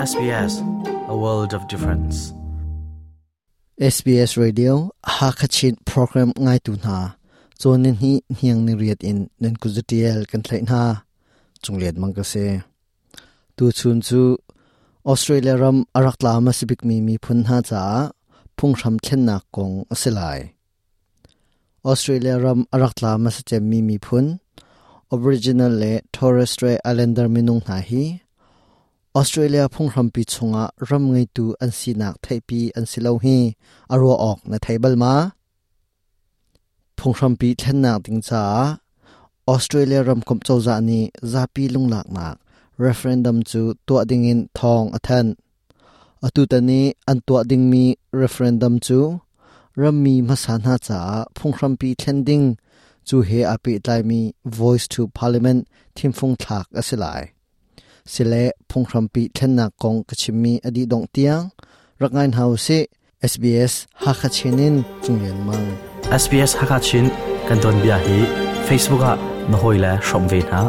SBS, a world of difference. SBS Radio Hakachin program ngaitu hna cawn hi hniang ni riat in nan kuzatial kan thlaih hna chunglian mang ka si tu chun cu Australia ram arak tla ma sibik mi miphun hna caah phunghram thlennak kong a si lai. Australia ram a rak tla hmasa cemmi miphun Aboriginal le Torres Strait Islander minung hna hi Australia phunghrampi chungah ram ngeitu an sinak theihpi an si lo hi a ruah awk na thei bal ma? Phunghrampi thlennak ding caah Australia ramkomh cozah nih zapi lunglaknak referendum cu tuah dingin thawng a thanh. Atutan i an tuah dingmi referendum cu rammi hmasa hna caah phunghrampi thlen ding cu he aa pehtlaimi Voice to Parliament thimfung thlak a si lai. Sile phunghrampi thlennak kong ka chimmi a dih dongh tiang rak ngai hna usih. SBS Hakha Chin in Cung Lian Mang. SBS Hakha Chin kan tuanbia hi Facebook ah na hawile hrawm ve hna.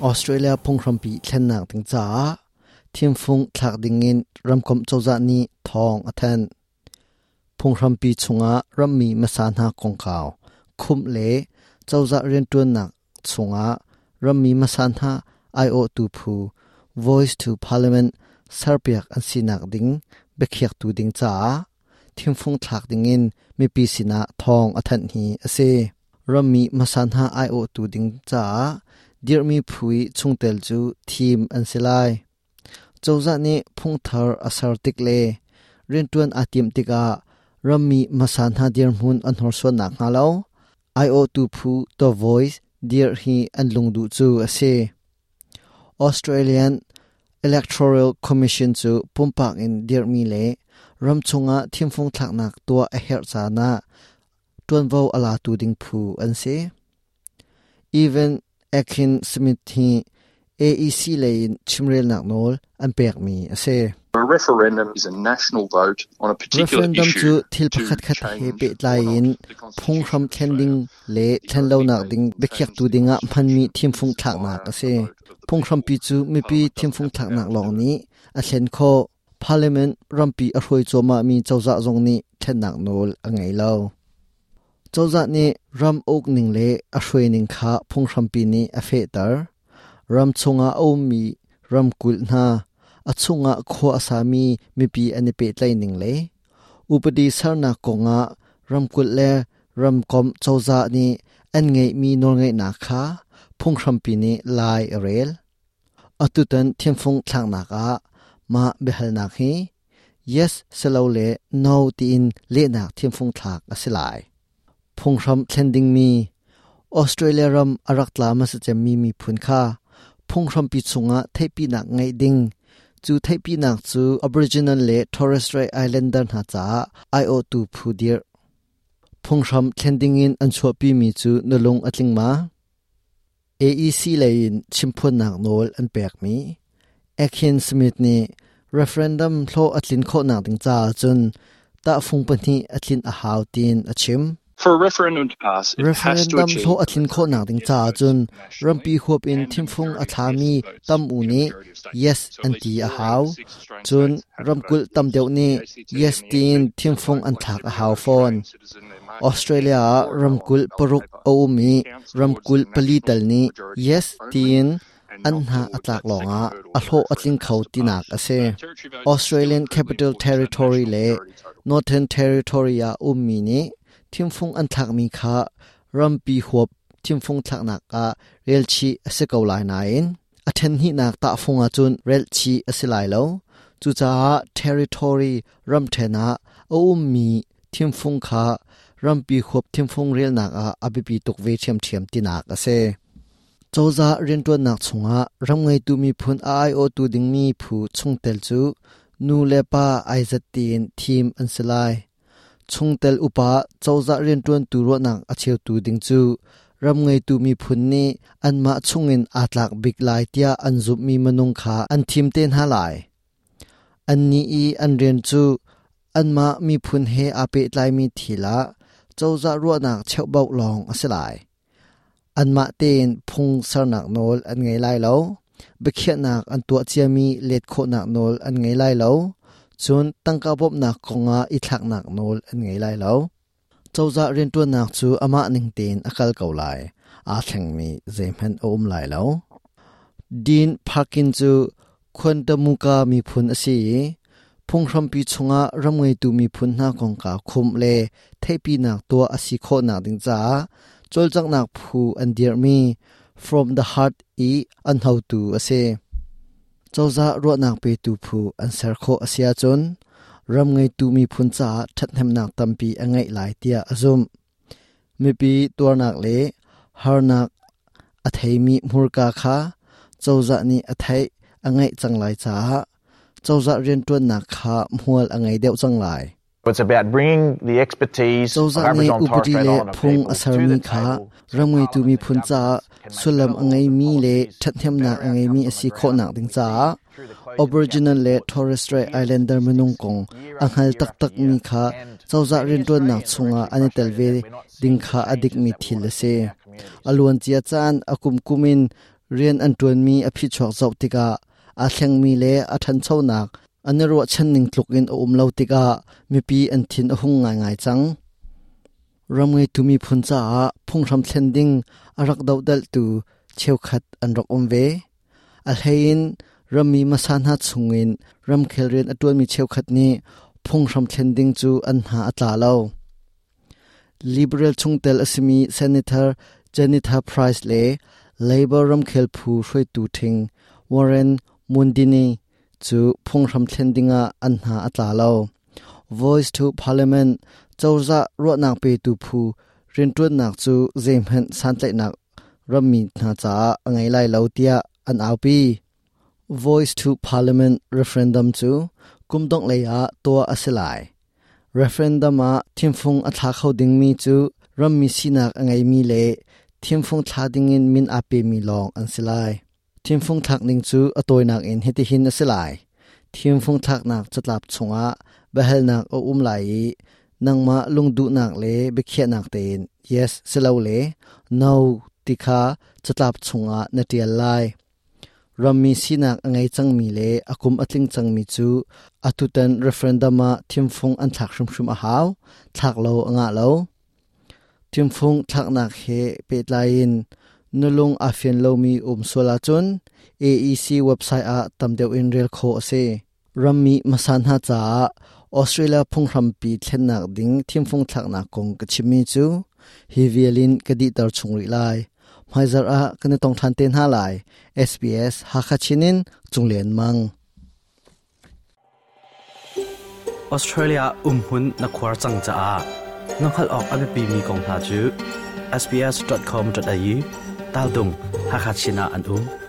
Australia phunghrampi thlennak ding caah thimfung thlak dingin ramkomh cozah nih thawng a thanh. Phunghrampi chungah rammi hmasa hna kongkau khumh le cozah rianṭuannak chungah rammi hmasa hna aiawhtu phu Voice to Parliament serpiak an sinak ding biakhiaktu ding caah thimfung thlak dingin mipi sinah thawng a thanh hi a si. Rammi hmasa hna aiawhtu ding caah dirhmi phu i chungtel cu thim an si lai. Cozah nih phungthar a ser tik le rianṭuan aa timh tikah rammi hmasa hna dirhmun an hnorsuan nakhnga lo aiawhtu phu The Voice dirh hi an lungduh cu a si. Australian Electoral Commission cu pumpak in dirhmi le ramchung ah thimfung thlaknak tuah a herh caan ah ṭuanvo a latu ding phu an si. Evan Akin Smith hi AEC lei in chimrelnak nawl an pekmi a si. Referendum is a national vote on a particular Referendum cu issue thil to pakhatkhat he change pehtlai or not in the phunghram constitution of thlen Australia. ding le The thlen only lonak way ding you can biakhiaktu change the dingah hmanmi constitution thimfung is thlaknak via a si. a vote of the Phunghrampi people. cu mipi Parliament doesn't thimfung have the thlaknak power to lawng do it. nih a thlen khawh. Parliament rampi a hruai cuahmahmi cozah zong nih thlennak nawl a ngei lo. Cozah nih ram ukning le a hruaining kha phunghrampi nih a fehter. Ram chungah a ummi ramkulh hna, a chungah khua a sami mipi an i pehtlaihning le upadi sernak kongah ramkulh le ramkomh cozah nih an ngeihmi nawlngeihnak kha phunghrampi nih lai a rel. Atutan thimfung thlaknak ah mah biahalnak hi yes silole no tiin lehnak thimfung thlak a si lai. Phunghram thlen dingmi Australia ram a rak tla hmasa cemmi miphun kha phunghrampi chungah theihpinak ngeih ding cu theihpinak cu Aboriginal le Torres Strait Islander hna caah aiawhtu phu dirh. Phunghram thlen dingin an chuahpimi cu na lung a tling ma? AEC lei in chimphuannak nawl an pekmi Akin Smith nih referendum hlawh a tlin khawhnak ding caah cun tahfung pahnih a tlin a hau tiin a chim. For a referendum to pass, it has to Referendum achieve hlawh a a tlin majority khawhnak of ding yes caah votes cun nationally rampi huap in and a thimfung a majority of thlami yes votes tam u in a nih majority of states. yes So at an least ti a 4 out hau. of the 6 Australian Cun states have to vote ramkulh tam yes. deuh nih The ACT yes and the tiin NT have thimfung voted an like thlak a every hau other fawn. Australian citizen. They're marking yes Australia ah or no on ramkulh the ballot paruk paper. a um i It counts towards ramkulh the pali national tal nih majority yes only tiin and an not hna a towards tlak that second lawngah hurdle a that a hlawh a tling referendum kho has to tinak pass. a si. Territory votes are still Australian incredibly Capital important to that Territory national le majority total. Northern Territory ah ummi nih thimfung an thlakmi kha rampi huap thimfung thlaknak ah relchih a si ko lai nain a ṭhenhnihnak tahfung ahcun relchih a si lai lo. Cucaah territory ramṭhen ah a ummi thimfung kha rampi huap thimfung relnak ah a biapi tuk ve ṭhiamṭhiam tinak a si. Cozah rianṭuannak chungah ram ngeitu miphun a aiawhtu dingmi phu chungtel cu nu le pa ai zat tiin thim an si lai. Chungtel upa cozah rianṭuantu ruahnak a cheutu ding cu ram ngeitu miphun nih anmah chungin aa tlak bik lai tiah an zumhmi minung kha an thim te hna lai. Annih i an rian cu anmah miphun he aa pehtlaimi thil ah cozah ruahnak cheuhbauh lawng a si lai. Anmah tein phung sernak nawl an ngei lai lo. Biakhiahnak an tuah ciami let khawhnak nawl an ngei lai lo. Cun tangka bawmhnak kongah i thlaknak nawl an ngei lai lo. Cozah rianṭuannak cu amah ning tein a kal ko lai. Aa thlengmi zeihmanh a um lai lo. Dean Parkin cu Quantamuka miphun a si i phunghrampi chungah ram ngeitu miphun hna kongkau khumh le theihpinak tuah a si khawhnak ding caah cawlcanghnak phu an dirhmi From the Heart i an hotu a si. Cozah ruahnak petu phu an ser khawh a si ahcun ram ngeitu miphun caah ṭhathnemnak tampi a ngeih lai tiah a zumh. Mipi tuarnak le harnak a theimi hmurka kha cozah nih a theih a ngeih cang lai caah cozah rianṭuannak kha hmual a ngei deuh cang lai. It's about bringing the expertise of Cozah nih Aboriginal and Torres upadi Strait le Islander phung people a to sermi the kha table so ram ngeitu Parliament and miphun caah governments can make sullam better a ngeimi laws and le policies, ṭhathnemnak better a ngeimi outcomes a on the si ground khawhnak than ding we see caah through the closing of the Aboriginal Gap le reports Torres Strait year Islander minung statistics kong year a after hngal year after taktakmi year. kha And cozah many rianṭuannak Australians are chungah actually an i tel frustrated ve that we're not ding seeing the kha a changes dikmi that we thil want a to see si. in our communities. A luancia caan a kumkum in rian an ṭuanmi a phichuak zoh tikah aa thlengmi le a ṭhanchonak an i ruahchan ning tluk in a um lo tikah mipi an thin a hung ngaingai cang. Ram ngeitu miphun caah phunghram thlen ding a rak dohdalhtu cheukhat an rak um ve. A hleiin rammi hmasa hna chungin ramkhel rian a ṭuanmi cheukhat nih phunghram thlen ding cu an hna a tla lo. Liberal chungtel a simi Senator Jennifer Price le Labor ramkhel phu hruaitu ṭhing Warren Mundine cu phunghram thlen dingah an hna a tla lo. Voice to Parliament cozah ruahnak petu phu rianṭuannak cu zeihmanh santlaihnak rammi hna caah a ngei lai lo tiah an aupi. Voice to Parliament referendum cu kum dongh lei ah tuah a si lai. Referendum ah thimfung a thla kho dingmi cu rammi sinak a ngeimi le thimfung thla dingin min aa pemi lawng an si lai. Thimfung thlak ning cu a tawinak in hitihin a si lai. Thimfung thlaknak catlap chungah biahalnak a um lai i nangmah lungduhnak le biakhiahnak tein yes silole no ti kha catlap chungah na ṭial lai. Rammi sinak a ngei cangmi le a kum a tling cangmi cu atutan referendum ah thimfung an thlak hrimhrim a hau, thlak lo a ngah lo. Thimfung thlaknak he pehtlai in na lung aa fian lomi um sual ahcun AEC website ah tam deuh in rel khawh a si. Rammi hmasa hna caah Australia phunghrampi thlennak ding thimfung thlaknak kong ka chimmi cu hi vial in ka dihter chung rih lai. Hmaizarh ah kan i tong ṭhan te hna lai. SBS Hakha Chin in Cunglian Mang. Australia umhmun na khuar cang caah na hngalh awk a biapimi kong hna cu sbs.com.au tal dung Hakha Chin ah an um.